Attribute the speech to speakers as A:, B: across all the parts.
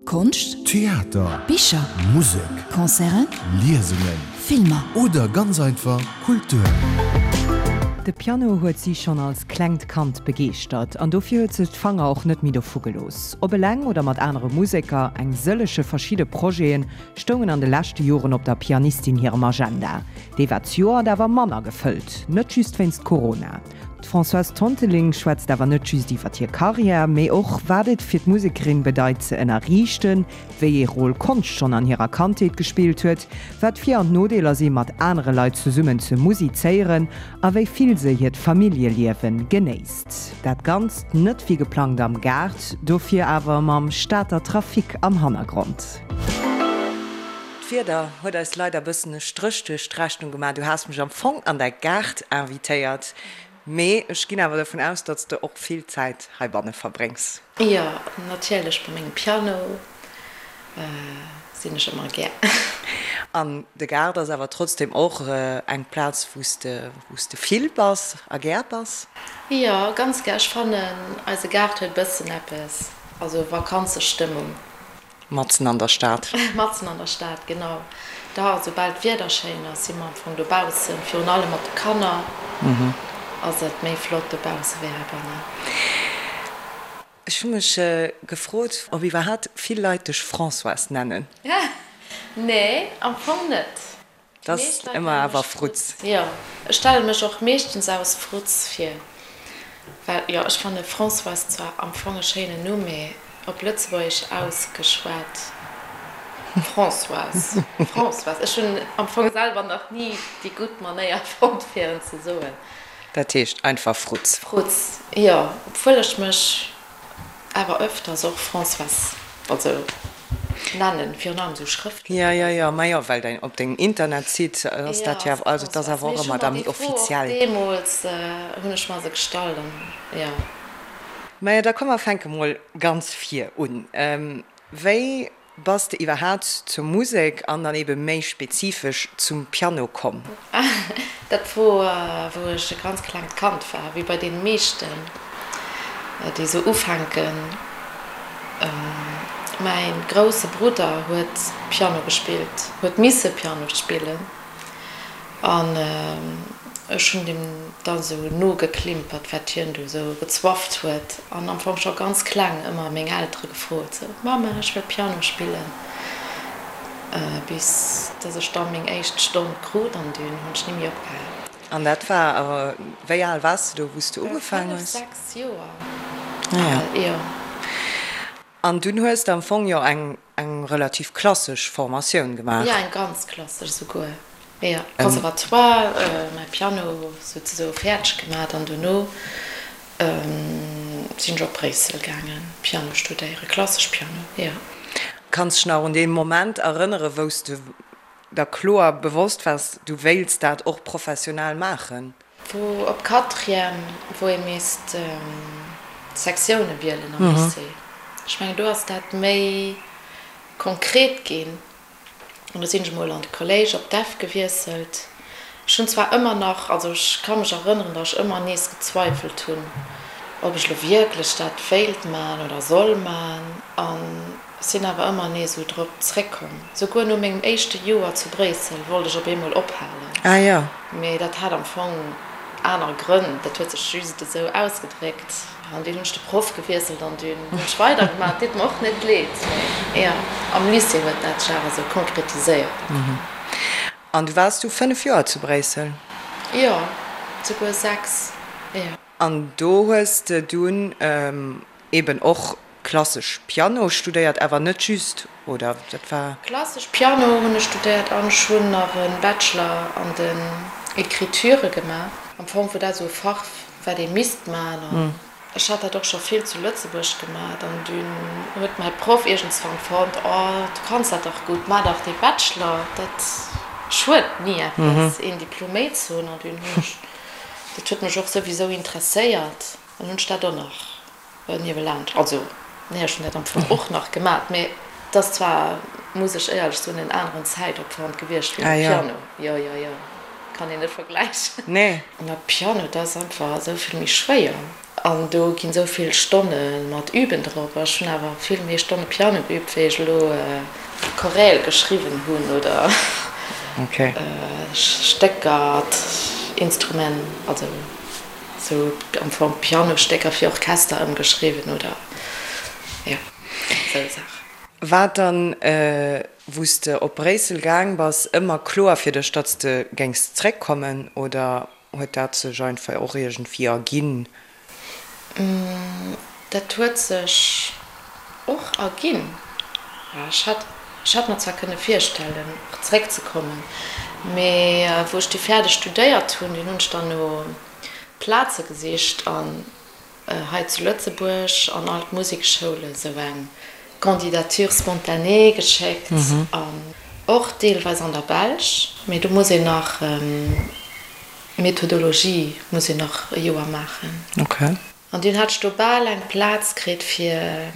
A: Konscht,
B: Theater,
A: Bicher,
B: Musek,
A: Concerten,
B: Liesungen
A: Filmer.
B: Oder ganz einfach Kultur.
C: De Piano huet si schonn als klengt Kand begeeschtert an dofir huet se d'Fanger och net méi dovu gelooss. Ob eleng oder mat anere Museker, eng sëllege verschidde Projete stoungen an de leschte Joren op der Pianistin hirem Agenda. Dee war d'Joert awer manner gefëllt, net just wéinst Corona. D'Françoise Tonteling schwätzt awer net just iwwer hir Karriär, mee och wat et fir d'Musekerin bedeit ze ënnerriichten, wéi ee Rôle Konscht schonn an hirer Kandheet gespillt huet, wat d'Vir an d'Nodeeler si mat anere Leit zesummen ze musizéieren a wéi vill se hiert Familljeliewe genéisst. Dat Ganzt net wéi geplangt am Gaart, dofir awer mam Stater Trafic am Hannergrond. D'Wieder huet eis leider bëssen e Stréch duerch d'Rechnung gemaach. Du has mech am Fong an däi Gaart invitéiert, mee ech ginn awer dovun aus, datt s de och vill Zäit heibanne verbréngs.
D: Jo, natierlech, bei mengem Piano sinn ech ëmmer gär.
C: An de Gaart ass awer trotzdem och eng Plaz, wou s de, wou s de vill bass a gär bass?
D: Jo, ganz gär. Ech fannen, eise Gaart huet e bëssen eppes, also Vakanzestëmmung.
C: Matzen an der Stad.
D: Matzen an der Stad, genau. Da, soubal d'Wieder schéin ass, si mer am Fong dobaussen. Virun allem mat de Kanner ass et méi flott dobausse wéi heibannen.
C: Ech hu mech gefrot, ob iwwerhaapt vill Leit dech Françoise nennen.
D: Nee, am Fong net.
C: 't ass ëmmer awer Frutz.
D: Jo, ech stelle mech och meeschtens aus Frutz vir, well jo, ech fanne Françoise zwar am Fong e schéinen Numm, mee op Lëtzebuergesch ausgeschwat Françoise, Françoise. Ech hunn am Fong selwer nach ni déi gutt Manéier fonnt, fir en ze soen.
C: Dat heescht einfach Frutz.
D: Frutz, jo, obwuel ech mech Awer öfters och Françoise, also nennen, virun allem sou schrëftlech.
C: Jo, jo, jo, ma jo, well däin, op dengem Internetsite ass dat jo awer, also et ass awer och ëmmer da méi offiziell.
D: Deemools hunn ech mer se gestallt an jo.
C: Majo, da komm mer fänke mol ganz vir un. Wéi Bass de iwwerhaat zur Musek an dann eben méi spezifesch zum Piano komm?
D: Dat wor wou ech e ganz klengt Kand war, wéi bei deene meeschten déi sou ufänken. Mäin grousse Brudder huet Piano gespillt, huet misse Piano spillen. An ech hunn deem da sou nogeklimpert, wat hien do sou gezwafft huet. An am Fong scho ganz kleng ëmmer meng Eltere gefrot, sou, Mamma, ech wëll Piano spillen. Bis dass ech da meng éischt Stonn krut an dunn hunn ech ni méi opgehal.
C: An dat war, wéi al waars de do, wou s de ugefaang hues?
D: 5, 6 Joer al, jo.
C: An dunn hues de am Fong jo eng eng relativ klassesch Formatioun gemaach.
D: Jo, eng ganz klassesch esouguer. Jo, Conservatoire, mäi Piano souzesoe fäerdeg gemaat an dono sinn ech op Bréissel gaangen Piano studéieren, klassesch Piano, jo.
C: Kanns dech nach un dee Moment erënnere wou s de der kloer bewosst waars, du wéilts dat och professionell maachen?
D: Wou op Quatrième, wou ee misst Sektioune wielen am Lycée. Ech mengen, do ass dat méi konkret ginn. An do sinn ech emol an de Kolléisch op d'Eff gewiesselt. Ech hunn zwar ëmmer nach, also ech ka mech erënneren, datt ech ëmmer nees gezweifelt hunn, ob ech elo wierklech dat wéilt man oder soll man. An Sinn awer ëmmer nees esou drop zréckkomm. Souguer no mengem éischte Joer zu Bréissel wollt ech op eemol ophalen.
C: Ah jo.
D: Mee dat hat am Fong aner Grënn, dat huet sech just esou ausgedréckt. An dunn hunn ech de Proff gewiesselt an dunn hunn ech weidergemaach. Et deet mer och net leed, mee jo, am Lycée huet dat sech awer esou konkretiséiert am Fong.
C: An du waars du 5 Joer zu Bréissel?
D: Jo, souguer 6, jo.
C: An do hues de dunn eben och Klassesch Piano studéiert, awer net just, oder dat war?
D: Klassesch Piano hunn ech studéiert an ech hunn nach e Bachelor an den Écriture gemaach. Am Fong wor dat esou e Fach, wat ee misst maachen an ech hat dat och scho vill zu Lëtzebuerg gemaach an dunn huet mäi Proff iergendswann fonnt, Oh, du kanns dat dach gutt, maach dach dee Bachelor, dat schued ni eppes, een Diplom méi ze hunn. An dunn hunn ech, dat huet mech och souwisou interesséiert an hunn ech dat och nach Niewelaanscht, also nee, ech hunn dat am Fong och nach gemat, mee et ass zwar, muss ech éierlech soen, en aneren Zäitopwand gewiescht wéi mam Piano. Jo, jo, jo, kann een net vergläichen.
C: Nee.
D: Mä Piano, dat ass einfach esou vill méi schwéier. An do ginn esou vill Stonne mat Üben drop. Ech hunn awer vill méi Stonne Piano geübt, wéi ech elo Choräle geschriwwen hunn oder Stécker, Instrument, also sou am Fong Pianostécker fir Orchester ëmgeschriwwen oder jo, esou Saachen.
C: War dann, wou s de op Bréissel gaang bass, ëmmer kloer fir dech, datt s de géings zréckkommen oder Huet dat sech einfach och iergendwéi erginn?
D: Dat huet sech och erginn. Ech hätt, ech hätt mer zwar kënne virstellen, och zeréckzekommen, mee wou ech du fäerdeg studéiert hunn, dunn hunn ech dann no Plaze gesicht an hei zu Lëtzebuerg an all d'Musekschoule sou eng Candidature spontanée geschéckt an och deelweis an der Belsch, mee do muss een nach Methodologie muss een nach e Joer maachen. An dunn hat ech do bal eng Plaz kritt fir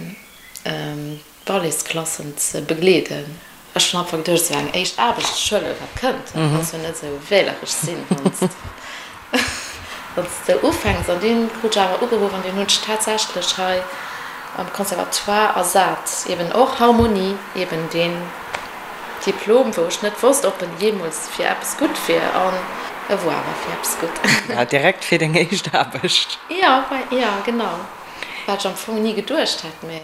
D: Balletsklassen ze begleeden. Ech hunn einfach geduecht, esou eng éischt Aarbecht, ech huelen wat kënnt, dat kanns jo net esou wähleresch sinn, wann s de esou ufänks. An dunn krut ech awer ugeruff an dunn hunn ech tatsächlech hei am Conservatoire ersat, eben och Harmonie, eben deen Diplom, wou ech net wosst, ob en jeemools fir eppes gutt wier, an e wor awer fir eppes gutt.
C: Direkt fir deng éischt Aarbecht?
D: Jo, jo, genau, wat ech am Fong ni geduecht hätt, mä.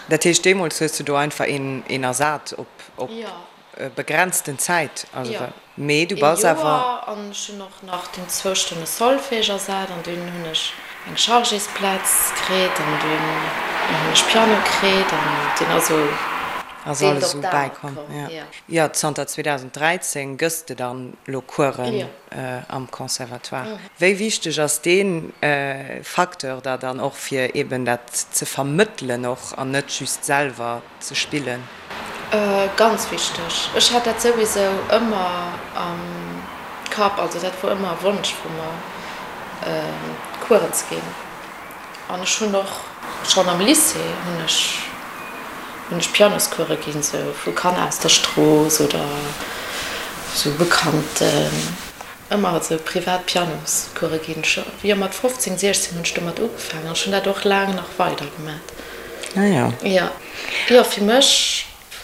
C: Dat heescht, deemools hues du do einfach een ersat op begrenzten Zäit?
D: Jo,
C: Mee du bass
D: ee Joer, an ech hunn och nach dunn zwou Stonne Solfège ersat an dunn hunn ech eng Chargésplaz kritt an dunn hunn ech Piano kritt an dunn ass esou
C: Ass alles esou bäikomm, jo. Jo, zanter 2013 gëss de dann elo Coursen am Conservatoire. Wéi wichteg ass dee Facteur da dann och fir eben dat ze vermëttelen och an net just selwer ze spillen?
D: Ganz wichteg. Ech hat dat souwisou ëmmer am Kapp, also dat wor ëmmer e Wonsch vu mer, Coursen ze ginn. An ech hunn och schonn am Lycée hunn ech hunn ech Pianoscourse ginn, sou vu Kanner aus der Strooss oder sou Bekannten. Ëmmer esou privat Pianoscourse ginn. Scho jo mat 15, 16 hunn ech domat ugefaangen an ech hunn dat och laang nach weider gemat.
C: Ah jo.
D: Jo. Jo, fir mech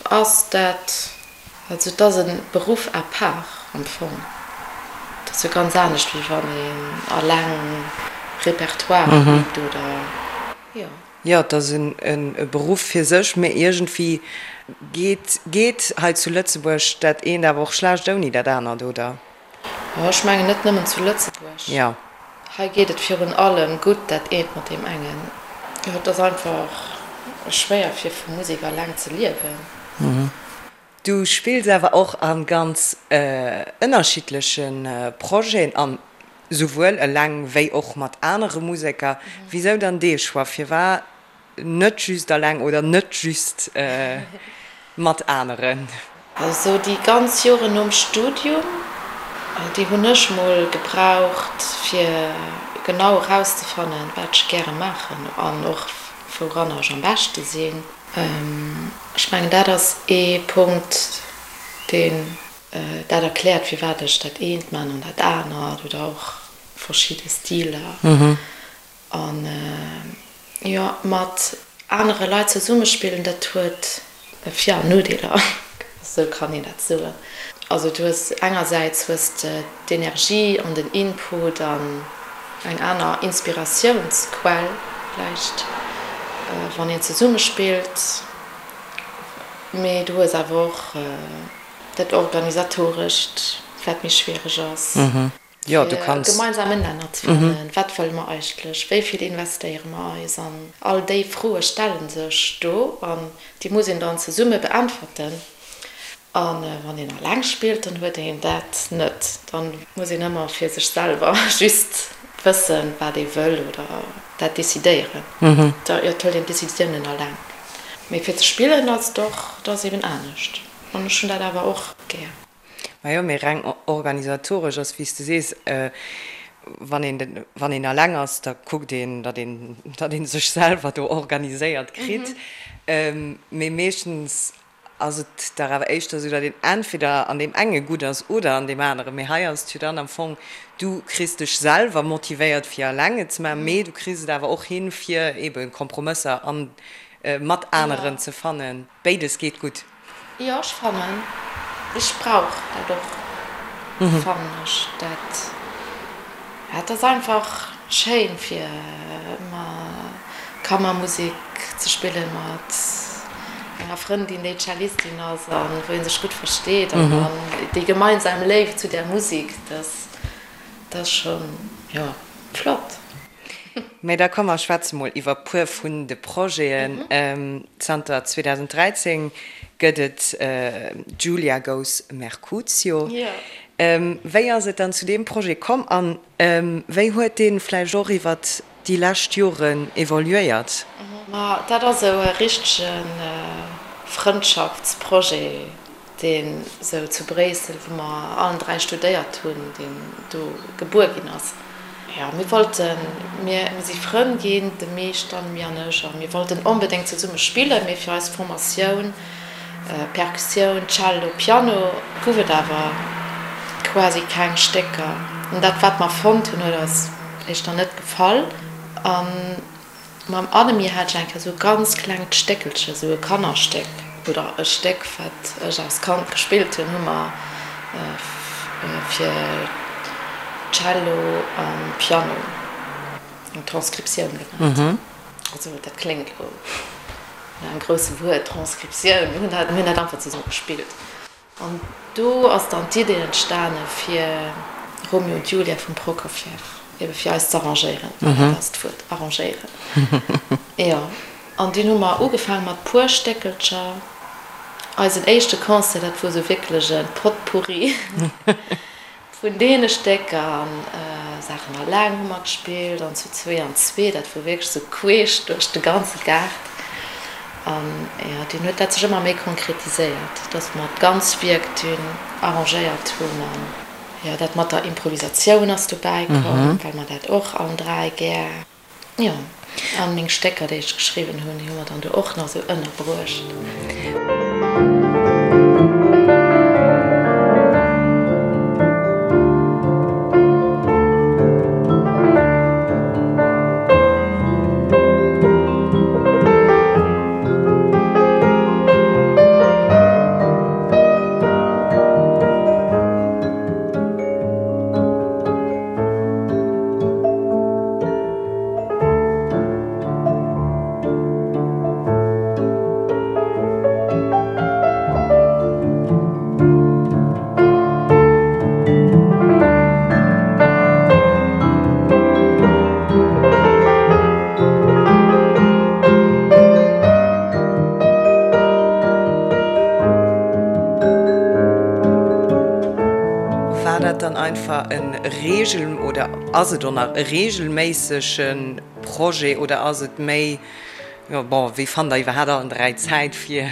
D: ass dat Also et ass e Beruff à part am Fong. Et ass jo ganz anescht wéi wann een alleng Repertoire übt oder jo.
C: Jo, et ass e Beruff fir sech, mee iergendwéi geet geet hei zu Lëtzebuerg dat eent awer och schlecht ouni dat anert, oder?
D: Jo, ech mengen net nëmmen zu Lëtzebuerg.
C: Jo.
D: Hei geet et virun allem gutt dat eent mat deem engen. Jo, et ass einfach schwéier fir vu Musek alleng ze liewen.
C: Du spills awer och a ganz ënnerschiddleche Projeten an souwuel eleng wéi och mat anere Museker. Wisou dann dee Choix? Firwat net just eleng oder net just mat aneren?
D: Also déi ganz Joren nom Studium, déi hunn ech mol gebraucht fir genau erauszefannen, wat ech gäre maachen an och wouranner ech am beschte sinn. Ech mengen, dat ass ee Punkt, deen dat erkläert, firwat ech dat eent man an dat anert oder och verschidde Stiler. An jo, mat anere Leit zesummespillen, dat huet Vir an Nodeeler, esou kann een dat soen. Also du hues engersäits hues de d'Energie an den Input an eng aner Inspiratiounsquell vläicht, wann een zesumme spillt, mee du hues awer och dat Organisatorescht, wat méi schwiereg ass.
C: Jo, du kanns.
D: Fir e gemeinsamen Nenner ze fannen. Wat wëlle mer eigentlech? Wéi vill investéiere mer eis? An all déi Froe stelle sech do an déi muss een dann zesumme beäntwerten. A wann een eleng spillt, dann huet een dat net. Da muss een ëmmer fir sech selwer just wëssen, wat ee wëll oder dat decidéieren. Da jo, et hëlt een d'Decisiounen eleng. Mee fir ze spillen ass et och, dat ass eben anescht. An ech hunn dat awer och gär.
C: Majo, mee reng organisatoresch ass, wéi s de sees, wann een, wann een eleng ass, da kuckt een, datt een, datt ee sech selwer do organiséiert kritt. Mee meeschtens. Ass et dach awer éischter esou, datt een entweder an deem enge gutt ass oder an deem aneren. Mee hei ass et jo dann am Fong, du kriss dech selwer motivéiert fir eleng et ze maachen, mee du kriss et awer och hin, fir eebe Kompromësser an mat aneren ze fannen. Béides geet gutt.
D: Jo, ech fannen, ech brauch dat och, fannen ech dat. Et ass einfach schéin fir Kammermusek ze spillen mat enger Frëndin déi Cellistin ass an wou een sech gutt versteet an dann déi gemeinsam Léift zu där Musek, dat ass schonn, jo, flott.
C: Mee da komm mer schwätze mol iwwer puer vun de Projeten. Zanter 2013 gëtt et Giulia Goes Mercutio. Wéi ass et dann zu deem Projet komm an wéi huet dee vläicht och iwwer déi lescht Joren evoluéiert?
D: Ma dat ass esou e richtege Frëndschaftsprojet, deen esou zu Bréissel, wou mer allen 3 studéiert hunn, deen do gebuer ginn ass. Jo, mir wollten, mir si Frënn ginn, de Misch, d'Annemie an ech, a mir wollten onbedéngt zesumme spillen, mee fir eis Formatioun, Perkussioun, Cello, Piano, gouf et awer quasi keng Stécker. An dat, wat mer fonnt hunn, huet eis éischter net gefall. A mam Annemie hat ech eng Kéier esou e ganz klengt Stéckelche, esou e Kannerstéck oder e Stéck, wat ech als Kand gespillt hunn, hu mer fir Cello a Piano eng Transkriptioun gemaach. Also dat kléngt elo no engem grousse Wuert, Transkriptioun. Mir hunn dat, mir hunn dat einfach zesumme gespillt. An do ass dann d'Idee entstane fir Romeo und Julia vum Prokofjew ebe fir eis z'arrangéieren. Dat ass d'Wuert, arrangéieren. Jo. An dunn hu mer ugefaange mat puer Stéckelcher. Eisen éischte Concert, dat wor esou wierklech e Potpourri. Vun deene Stécker an Saachen alleng hu mer gespillt an zu zwee an zwee, dat wor wierklech sou queesch duerch de ganze Gaart. An jo, dunn huet dat sech ëmmer méi konkretiséiert, dass mer d'ganz Wierk dunn arrangéiert hunn. An jo, dat mat der Improvisatioun ass dobäi komm, well mer dat och allen dräi gär. Jo, an meng Stécker, déi ech geschriwwen hunn, déi hu mer dann do och nach esou ënnerbruecht.
C: War dat dann einfach en Regel oder ass et och nach e regelméissege Projet oder ass et méi, jo bon, wéi fannt der iwwerhaapt allen 3 Zäit fir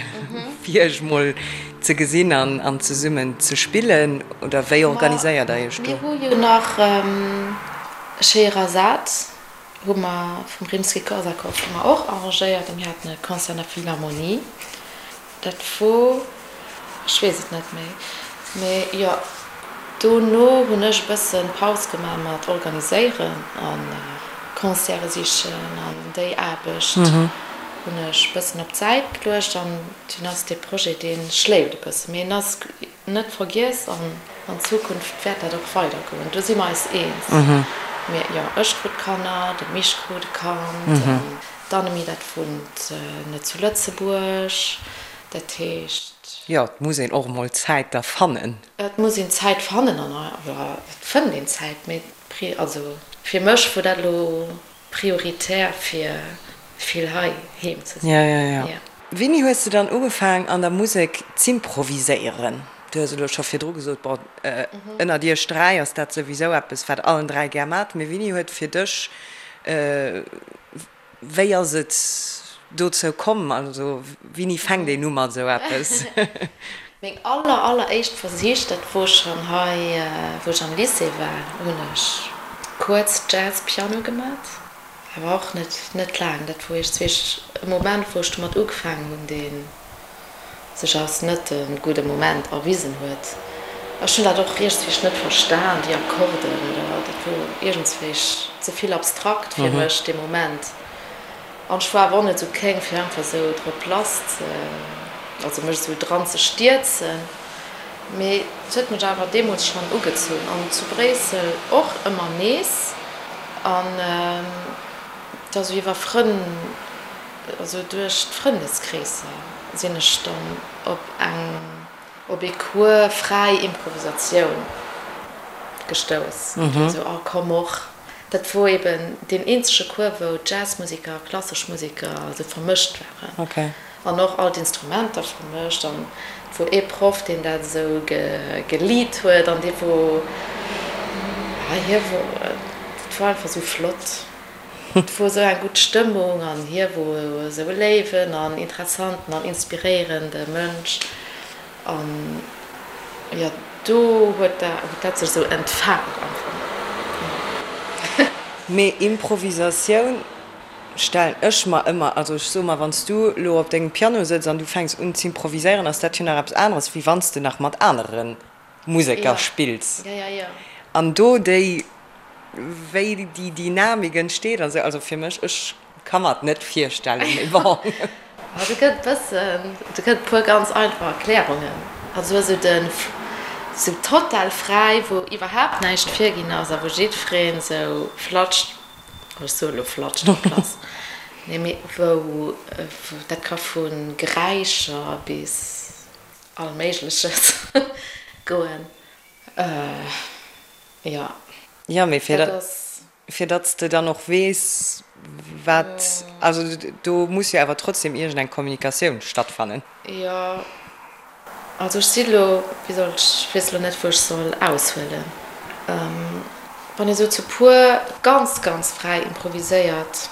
C: fir iech mol ze gesinn an an zesummen ze spillen oder wéi organiséiert der iech do?
D: Mir hu jo nach Scheherazade hu mer vum Rimsky-Korsakov hu mer och arrangéiert a mir haten e Concert an der Philharmonie. Dat wor, ech weess et net méi, mee jo, dono hunn ech e bësse Paus gemaach mat organiséieren a Concerte sichen an déi Aarbecht hunn ech e bëssen op d'Säit geluecht an dunn ass dee Projet, dee schléift e bësse, mee en ass net vergiess an an Zukunft wäert dat och weidergoen, do si mer eis eens. Mee jo, ech krut Kanner, de Misch krut e Kand an D'Annemie, dat wunnt net zu Lëtzebuerg, dat heescht.
C: Jo, et muss een och emol Zäit da fannen.
D: Et muss een Zäit fannen an et fënnt een Zäit, mee also fir mech wor dat elo prioritär fir vill hei heem ze sinn.
C: Jo, jo, jo. Wéini hues de dann ugefaang an der Musek z'improviséieren? Du hues elo scho virdru gesot, bon, ënnert iech 3 ass dat souwisou eppes wat allen 3 gär maacht, mee wéini huet fir dech Wéi ass et dozou komm? Also wéini fänkt een u mat esou eppes?
D: Meng aller aller éischt Versich, dat wor schonn hei wou ech am Lycée war, hunn ech kuerz Jazz Piano gemat, awer och net net laang. Dat wor iergendzwee e Moment wou ech domat ugefaangen hunn, deen. Sech als net de gudde Moment erwisen huet. Ech hunn dat och iergendswéi net verstan, déi Akkorden oder dat wor iergendswéi ze vill abstrakt fir mech dee Moment. An ech war awer och net esou kéng fir einfach esou drop lass ze, also mech esou dran ze stierzen. Mee et huet mech awer deemools schonn ugezunn an zu Bréissel och ëmmer nees. An da sou iwwer Frënn. Also duerch d'Frëndeskreesser sinn ech dann op eng, op ee Cours fräi Improvisatioun gestouss. Et war esou, oh komm och. Dat wor eben deen eenzege Cours, wou Jazzmusiker a klassesch Museker esou vermëscht waren. An och all d'Instrumenter vermëscht. An et wor ee Proff, deen dat esou gelead huet an dee wor, hie wor, dat wor einfach esou flott. Et wor esou eng gutt Stëmmung an hie wor esou e léiwen an interessanten an inspiréierende Mënsch an jo do huet dat sech esou entfaalt am Fong.
C: Mee Improvisatioun stellen ech mer ëmmer, also ech soe mer, wann s du elo op dengem Piano sëtz an du fänks un z'improviséieren, ass dat jo nach eppes aneres, wéi wann s de nach mat anere Museker spills an do déi, wéi déi Dynamik entsteet an esou, also fir mech, ech ka mer et net virstellen, mee bon.
D: Do gëtt e bëssen, do gëtt e puer ganz einfach Erklärungen, also esou den, esou total fräi, wou iwwerhaapt näischt virginn ass a wou jiddwereen esou flatscht, ech soe lo flatscht drop lass, nee mee wou, dat ka vu Geräischer bis All Méigleches goen, jo.
C: Jo, mee fir dat, fir datt s de dann och weess, wat, also do muss jo awer trotzdem iergend eng Kommunikatioun stattfannen.
D: Jo, also ech si lo, wéi soll ech, ech weess lo net, wou ech soll aushuelen. Wann ee sou zu puer ganz, ganz fräi improviséiert,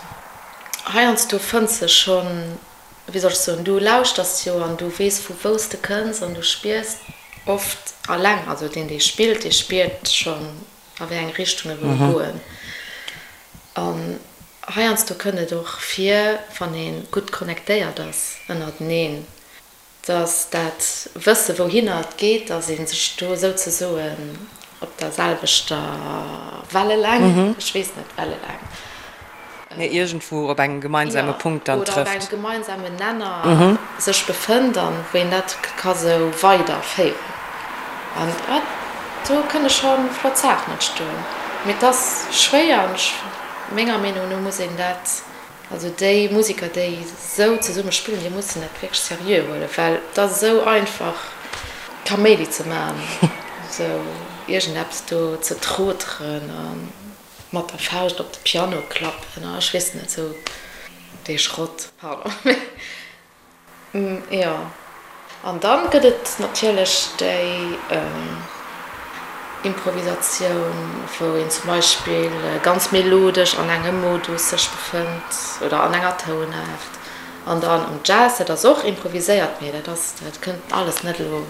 D: heiansdo fënns de schonn wéi soll ech soen, du lauschters jo an du weess vu wou s de kënns an du spiers oft alleng, also deen dee spillt, dee spiert schonn a wéi eng Richtung e wëll goen. An heiansdo kënnt et och vir, wann ee gutt connectéiert ass ënnerteneen, Dass dat Wësse wouhinner et geet, dass ee sech do souzesoen op der selwechter Welleläng, ech weess net, Welleläng.
C: Mee iergendwou op engem gemeinsame Punkt dann trëfft.
D: Oder op engem gemeinsamen Nenner sech befënnt an wou een dat ka sou weiderféieren. An do kënne scho flott Saachen entstoen. Mee et ass schwéier an ech, menger Meenung no muss een dat Also déi Musiker, déi esou zesumme spillen, déi mussen dat wierklech seriö huelen, well et ass esou einfach Kaméidi ze maachen, esou iergendeppes do ze troteren a mat der Fauscht op de Piano klappen a ech weess net, esou dee Schrott, pardon. Jo, an dann gëtt et natierlech déi Improvisatioun, wou een zum Beispill ganz melodesch an engem Modus sech befënnt oder an enger Tounaart. An dann am Jazz, dat ass och improviséiert, mee dat ass, dat kënnt alles net elo,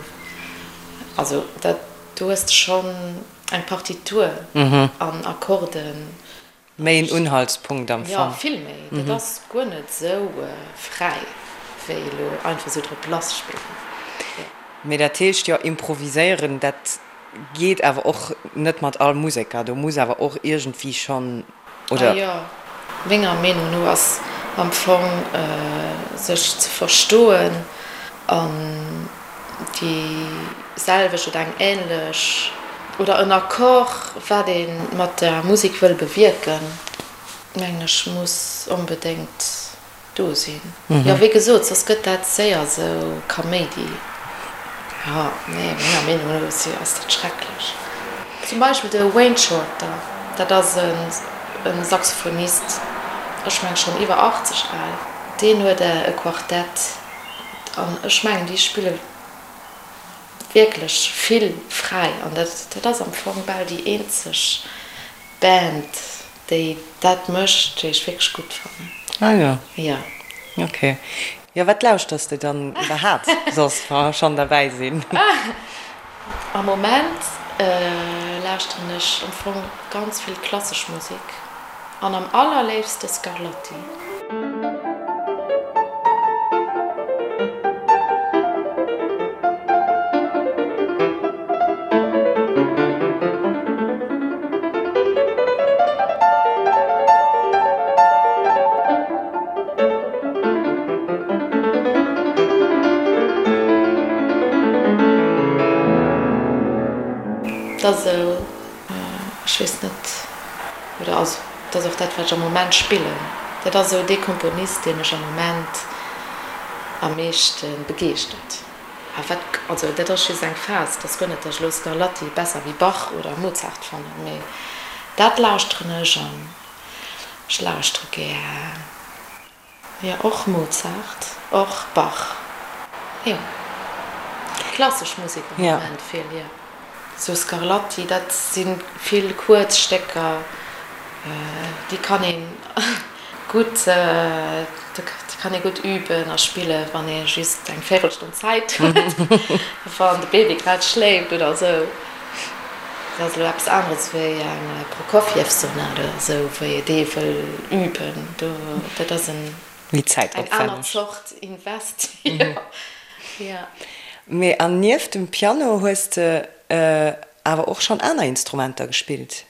D: also dat, do hues de schonn eng Partitur an Akkorden.
C: Méi en Unhaltspunkt am
D: Fong. Jo, vill méi. Dat ass guer net esou fräi wéi elo einfach esou drop lass spillen.
C: Jo. Mee dat heescht jo, improviséieren, dat geet awer och net mat all Museker. Do muss awer och iergendwéi schonn, oder?
D: Ah jo, menger Meenung no ass am Fong sech ze verstoen an déi selwecht oder eng änlech oder en Accord, wat ee mat der Musek wëll bewierken, mengen ech, muss onbedéngt do sinn. Jo, wéi gesot, soss gëtt dat séier esou Kaméidi. Jo, nee, menger Meenung no ass dat schrecklech. Zum Beispill de Wayne Shorter, dat ass e Saxophonist, ech mengen schonn iwwer 80 al, deen huet e Quartett. An ech mengen, déi spille wierklech vill fräi. An dat, dat ass am Fong bal déi eenzeg Band, déi dat mécht, déi ech wierklech gutt fannen.
C: Ah jo.
D: Jo.
C: Ok. Jo, wat lauschters de dann iwwerhaapt soss, wa mer schonn derbäi sinn?
D: Am Moment lauschteren ech am Fong ganz vill klassesch Musek. An am allerléifste Scarlatti. Dat ass esou, ech weess net, oder also dat ass och dat, wat ech am Moment spillen. Dat ass esou dee Komponist, dee mech am Moment am meeschte begeeschtert. A wat, also dat ass just eng Phas, et ass guer net, datt ech elo Scarlatti besser wéi Bach oder Mozart fannen, mee dat lauschteren ech an ech lauschtere gär. Jo, och Mozart, och Bach, jo. Klassesch Musek am Moment vill, jo. Sou Scarlatti, dat si vill kuerz Stécker, déi kann ee gutt, déi kann ee gutt üben a spillen, wann ee just eng Véirelstonn Zäit huet, wann de Baby grad schléift oder esou. Dat ass elo eppes aneres wéi eng Prokofjew-Sonat oder esou, wou ee dee wëll üben. Do, dat ass en,
C: Méi
D: eng aner
C: zäitopwänneg.
D: Zort Invest, jo, jo.
C: Mee an nieft dem Piano hues de awer och schonn aner Instrumenter gespillt?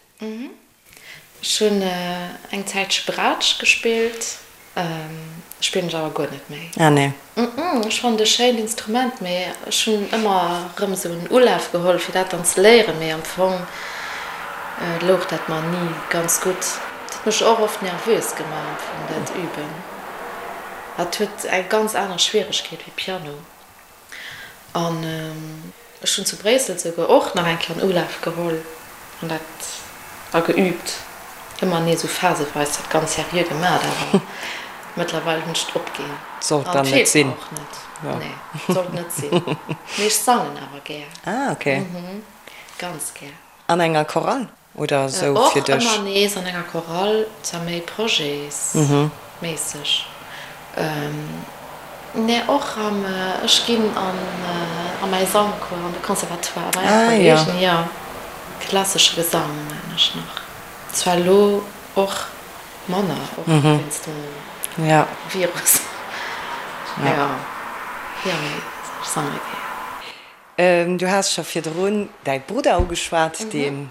D: Ech hunn eng Zäitche Braatsch gespillt, spillen ech awer guer net méi.
C: Ah nee.
D: Ech fannen et e schéint Instrument, mee ech hunn ëmmer erëm esou en Ulaf geholl fir dat dann ze léieren, mee am Fong louch dat mer ni ganz gutt. Et huet mech och oft nervös gemaach am Fong dat Üben. Et huet eng ganz aner Schwieregkeet wéi Piano. An ech hunn zu Bréissel souguer och nach eng Kéier en Ulaf geholl an dat a geüübt. Ëmmer nees esou phaseweis dat ganz seriö gemat, awer mëttlerweil hunn ech et opginn.
C: Sollt
D: An
C: dann
D: et
C: net
D: feelt mer
C: sinn.
D: och net. Nee, sollt net sinn. Mee ech sangen awer gär.
C: Ah, okay.
D: Ganz gär.
C: An enger Chorale? Oder esou
D: Och
C: fir dech?
D: ëmmer nees an enger Chorale, zwar méi projetsméisseg, mä och am, ech ginn an a mäi Sangcours an de Conservatoire bei eng Kolleegin, jo, klassesche Gesang maan ech nach, zwar elo och manner, och wéinst dem Virus, jo, jo, mee ech sange gär.
C: Du has scho virdrun däi Brudder ugeschwat, deen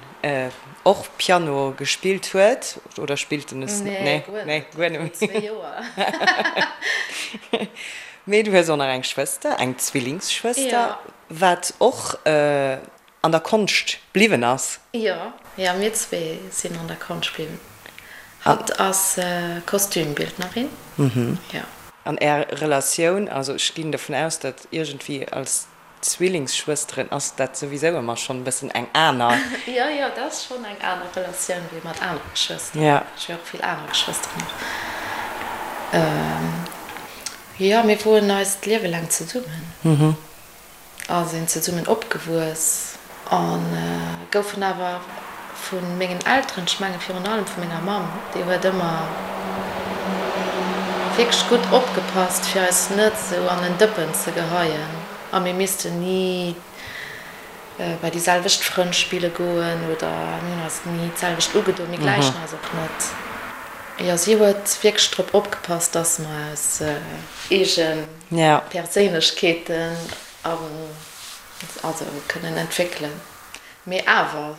C: och Piano gespillt huet, oder spillt en es?
D: Nee, guer net,
C: guer net
D: méi. Joer.
C: Mee du hues och nach eng Schwëster, eng Zwillingsschwëster, wat och an der Konscht bliwwen ass.
D: Jo, jo, mir zwee sinn an der Konscht bliwwen. Hatt ass Kostümbildnerin, jo.
C: An Är Relatioun, also ech ginn dovun aus, datt iergendwéi als Zwillingsschwësteren ass dat souwisou ëmmer schonn e bëssen eng aner.
D: Jo, jo, dat ass schonn eng aner Relatioun wéi mat anere Geschwëster. Ech hu jo och vill aner Geschwëster nach. Jo, mir woren eist Liewe laang zesummen. A sinn zesummen opgewuess a goufen awer vu mengen Elteren, ech menge virun allem vu menger Mamm, déi huet ëmmer wierklech gutt opgepasst, fir eis net esou an en Dëppen ze geheien a mir missten ni bei déi selwecht Frënn spille goen oder mir hunn eis ni d'selwecht ugedoen, mir gläichen eis och net. Jo, si huet wierklech drop opgepasst, dass mer eis eegen. Perséinlechkeeten also kënnen entwéckelen. Mee awer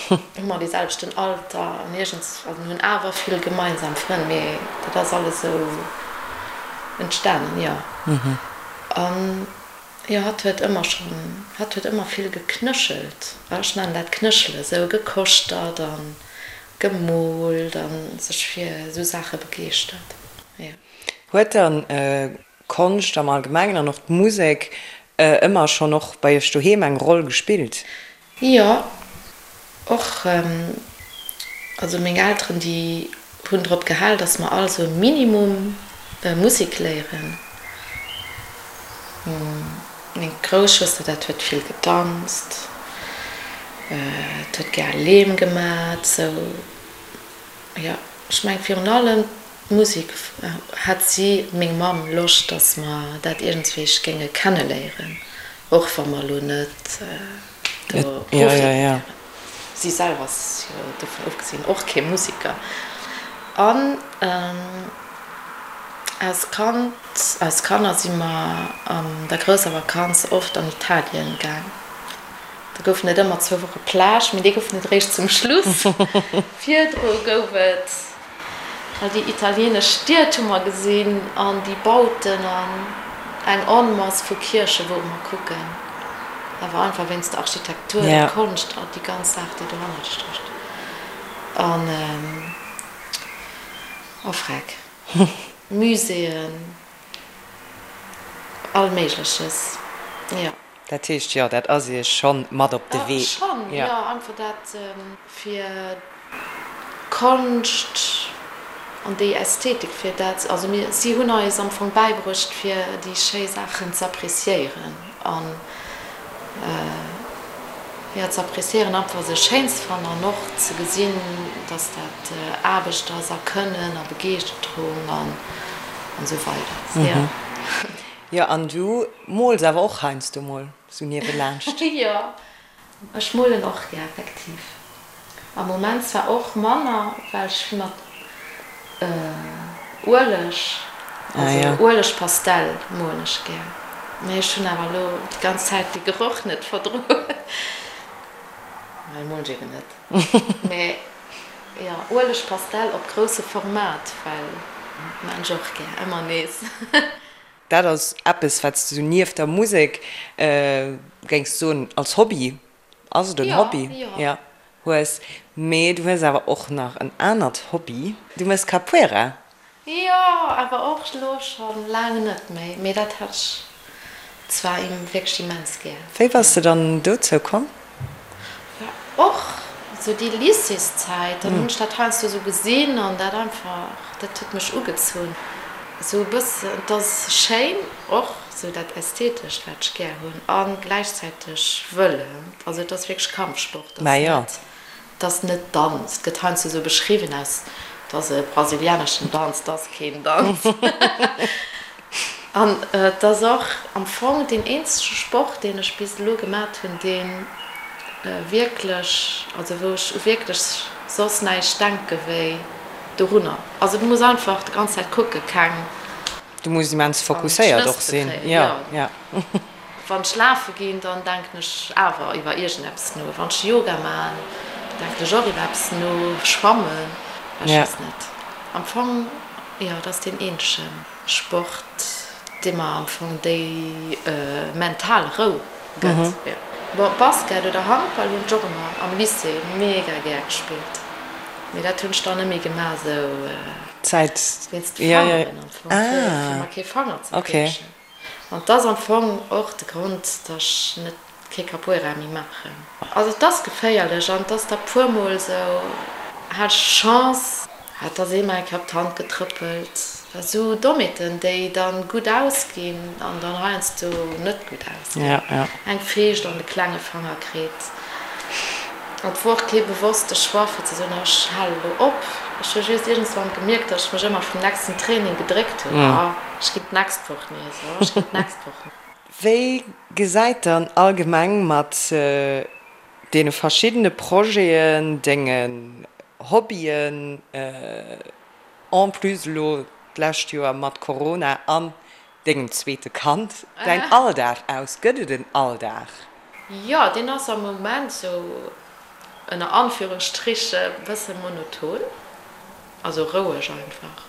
D: hu mer dee selwechten Alter an iergends, also mir hunn awer vill gemeinsam Frënn, mee dat ass alles esou entstanen, jo. An jo, hatt huet ëmmer schonn, hatt huet ëmmer vill geknéchelt, ech nennen dat knéchele, esou gekoschtert a gemoolt a sech fir esou Saache begeeschtert, jo.
C: Huet dann Konscht am Allgemengen an och d'Musek ëmmer schonn och bei iech doheem eng Roll gespillt?
D: Jo, och. Also meng Elteren, déi hunn drop gehal, datt mer all sou e Minimum Musek léieren. Meng grouss Schwëster, dat huet vill gedanzt, dat huet gär Leem gemat, sou. Jo, ech meng virun allem D'Musek hat si, meng Mamm, Loscht, datt mer dat iergendswéi géinge kenneléieren, och wa mer elo net do Profi wären. Si selwer ass jo dovun ofgesinn och kee Museker. An als Kand, als Kanner si mer an der grousser Vakanz oft an Italien gaang. Do goufen et ëmmer zwou Woche Plage, mee déi goufen et eréischt zum Schluss. Virdru gouf et All déi italienesch Stied hu mer gesinn an déi Bauten an eng Onmass vu Kierche wore mer kucken. Awer einfach wéinst der Architektur, der Konscht a déi ganz Saach, déi dohannert stécht. An, oh freck, Muséeën, all Méigleches, jo.
C: Dat heescht, jo, dat ass Iech schonn mat op de Wee.
D: Schonn, jo, einfach dat fir d'Konscht an déi Ästhetik, fir dat, also mir, si hunn eis am Fong bäibruecht, fir déi schéi Saachen z'appréciéieren an, jo, z'appréciéieren, einfach se schéin ze fannen an och ze gesinn, dass dat Aarbecht ass a Kënnen a Begeeschterung an esou weider, jo.
C: Jo, an du mools awer och heiansdo mol sou niewelaanscht?
D: Jo, ech molen och gär, effektiv. Am Moment zwar och manner, well ech vill mat Ueleg, also Uelegpastell molen ech gär. Mee ech hunn awer elo déi ganz Zäit de Geroch net verdroen. Well molen ech eben net. Mee jo, Uelegpastell op grousse Format, well maan ech och gär, ëmmer nees.
C: Dat ass eppes, wat s de sou nieft der Musek, géings soen, als Hobby, ass et en Hobby? Jo, hues. Mee du hues awer och nach en anert Hobby, du méchs Capoeira.
D: Jo, awer och elo scho laang net méi. Mee dat hat ech zwar wierklech immens gär.
C: Wéi bass de dann dozou komm?
D: War och sou déi Lycéeszäit, dann hunn ech dat heiansdo sou gesinn an dat einfach, dat huet mech ugezunn. Sou e bëssen, et ass schéin och sou dat Ästhetescht, wat ech gär hunn a gläichzäiteg wëll, also et ass wierklech Kampfsport, ass net. Et ass net Danz, et gëtt heiansdo sou beschriwwen aus, et ass e brasilianeschen Danz, et ass keen Danz. An et ass och am Fong deen eenzege Sport, deen ech bis elo gemat hunn, dee wierklech, also wou ech u wierklech soss näischt denke wéi dorunner. Also du muss einfach déi ganz Zäit kucke keng.
C: Du muss immens fokusséiert och sinn, jo, jo.
D: Wann ech lafe ginn, dann denken ech awer iwwer iergendeppes no. Wann ech Yoga man, da denken ech och iwwer eppes no. Schwammen, ech weess net. Am Fong, jo, et ass deen eenzege Sport, dee mer am Fong déi mental Rou gëtt. Bon, Basket oder Handball hunn ech och ëmmer am Lycée mega gär gespillt, mee dat hunn ech dann net méi gemaach, esou wéinst de Fangeren am Fong, fir mer kee Fanger ze briechen. An 't ass am Fong och de Grond, dass ech net kee Capoeira méi maachen. Also 't ass geféierlech an 't ass da puer mol sou, hat ech Chance, hat ass ee mer eng Kéier op d'Hand getrëppelt. Sou Dommheeten, déi dann gutt ausginn an dann heiansdo net gutt ausginn. Eng Feescht an de klenge Fanger kritt. An et wor och kee bewosste Choix fir ze soen, ech hale lo op. Ech hu just iergendswann gemierkt, datt ech mech ëmmer vum nächsten Training gedréckt hunn, oh, ech ginn d'nächst Woch nees, oh, ech ginn d'nächst Woch nees.
C: Wéi gesäit dann allgemeng mat deene verschiddene Projeten, dengen Hobbyen, en plus elo d'lescht Joer mat Corona an dengem zweete Kand, däin Alldag aus? Gëtt et en Alldag?
D: Jo, deen ass am Moment sou ënner Anführungsstriche bësse monoton, also roueg einfach.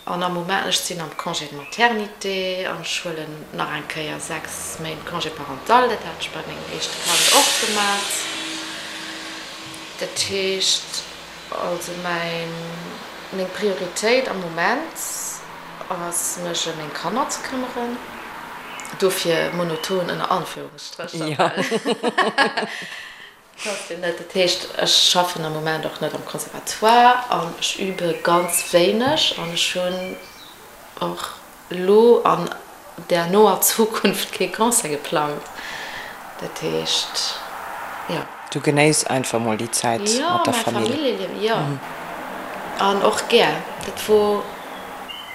D: An am Moment, ech sinn am Congé de maternité an ech huelen nach eng Kéier 6 Méint Congé parental, dat hat ech bei mengem éischte Kand och gemat. Dat heescht also mäin, meng Prioritéit am Moment ass mech ëm meng Kanner ze këmmeren, dofir monoton ënner Anführungsstrécher, well et ass jo net, dat heescht ech schaffen am Moment och net am Conservatoire an ech übe ganz wéineg an ech hunn och elo an der noer Zukunft kee Concert geplangt. Dat heescht, jo.
C: Du genéiss einfach mol déi Zäit mat der Famill.
D: Jo, mäi Familljeliewen, jo. An och gär. Dat wor,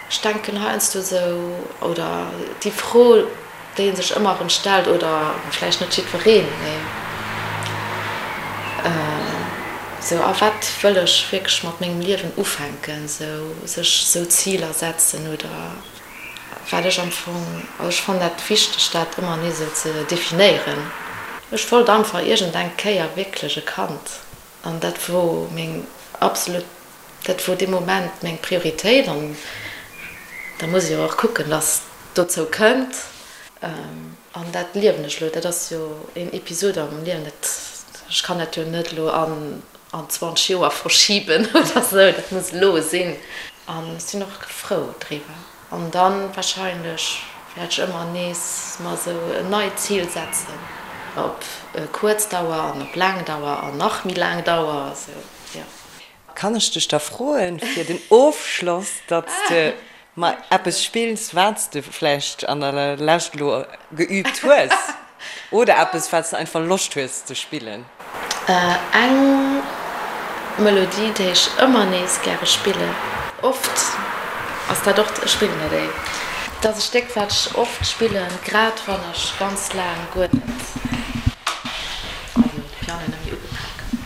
D: ech denken heiansdo esou, oder déi Fro, déi ee sech ëmmer erëm stellt, oder vläicht net jiddwereen, mee esou, a wat wëll ech wierklech mat mengem Liewen ufänken, esou sech esou Ziler setzen oder wat ech am Fong, also ech fannen dat wichteg, dat ëmmer nees esou ze definéieren. Ech wollt einfach iergendeng Kéier wierklech e Kand an dat wor meng absolut, dat wor dee Moment meng Prioritéit an da muss ee jo och kucken, dass et dozou kënnt. An dat liewen ech elo. Dat ass jo een Episod a mengem Liewen. Dat, ech kann dat jo net elo an an 20 Joer verschiben oder esou. Dat muss elo sinn. An ech sinn och frou driwwer. An dann wahrscheinlech wäert ech ëmmer nees mer esou en neit Zil setzen, op kuerz Dauer an op laang Dauer an nach méi laang Dauer, esou, jo.
C: Kann ech dech da froen, fir den Ofschloss, datt s de mer eppes spills, wat s de vläicht an der Lescht elo geüübt hues oder eppes, wat s de einfach Loscht hues ze spillen?
D: Eng Melodie, déi ech ëmmer nees gäre spillen. Oft ass dat och, ech spillen dat éi. Dat ass e Stéck, wat ech oft spillen, grad wann ech ganz laang guer net, also de Piano net méi ugepak hunn.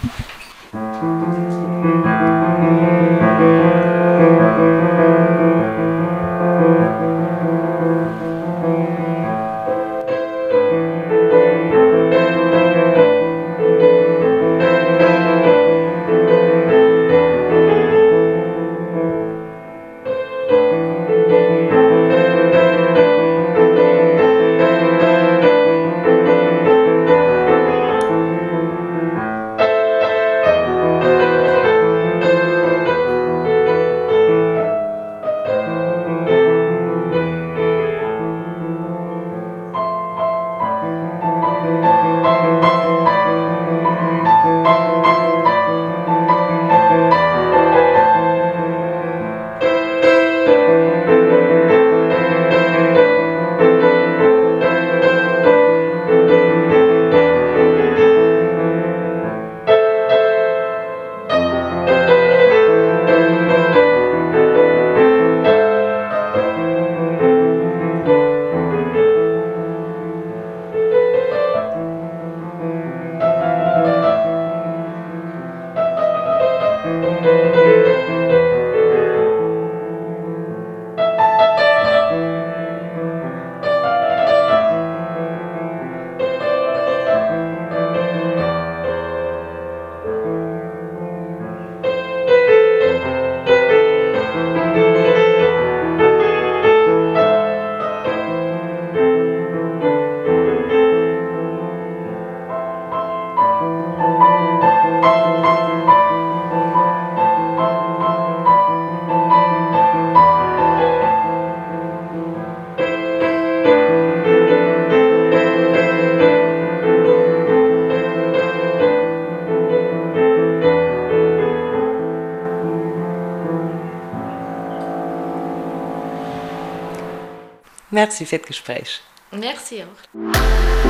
C: Merci fir d'Gespréich.
D: Merci och.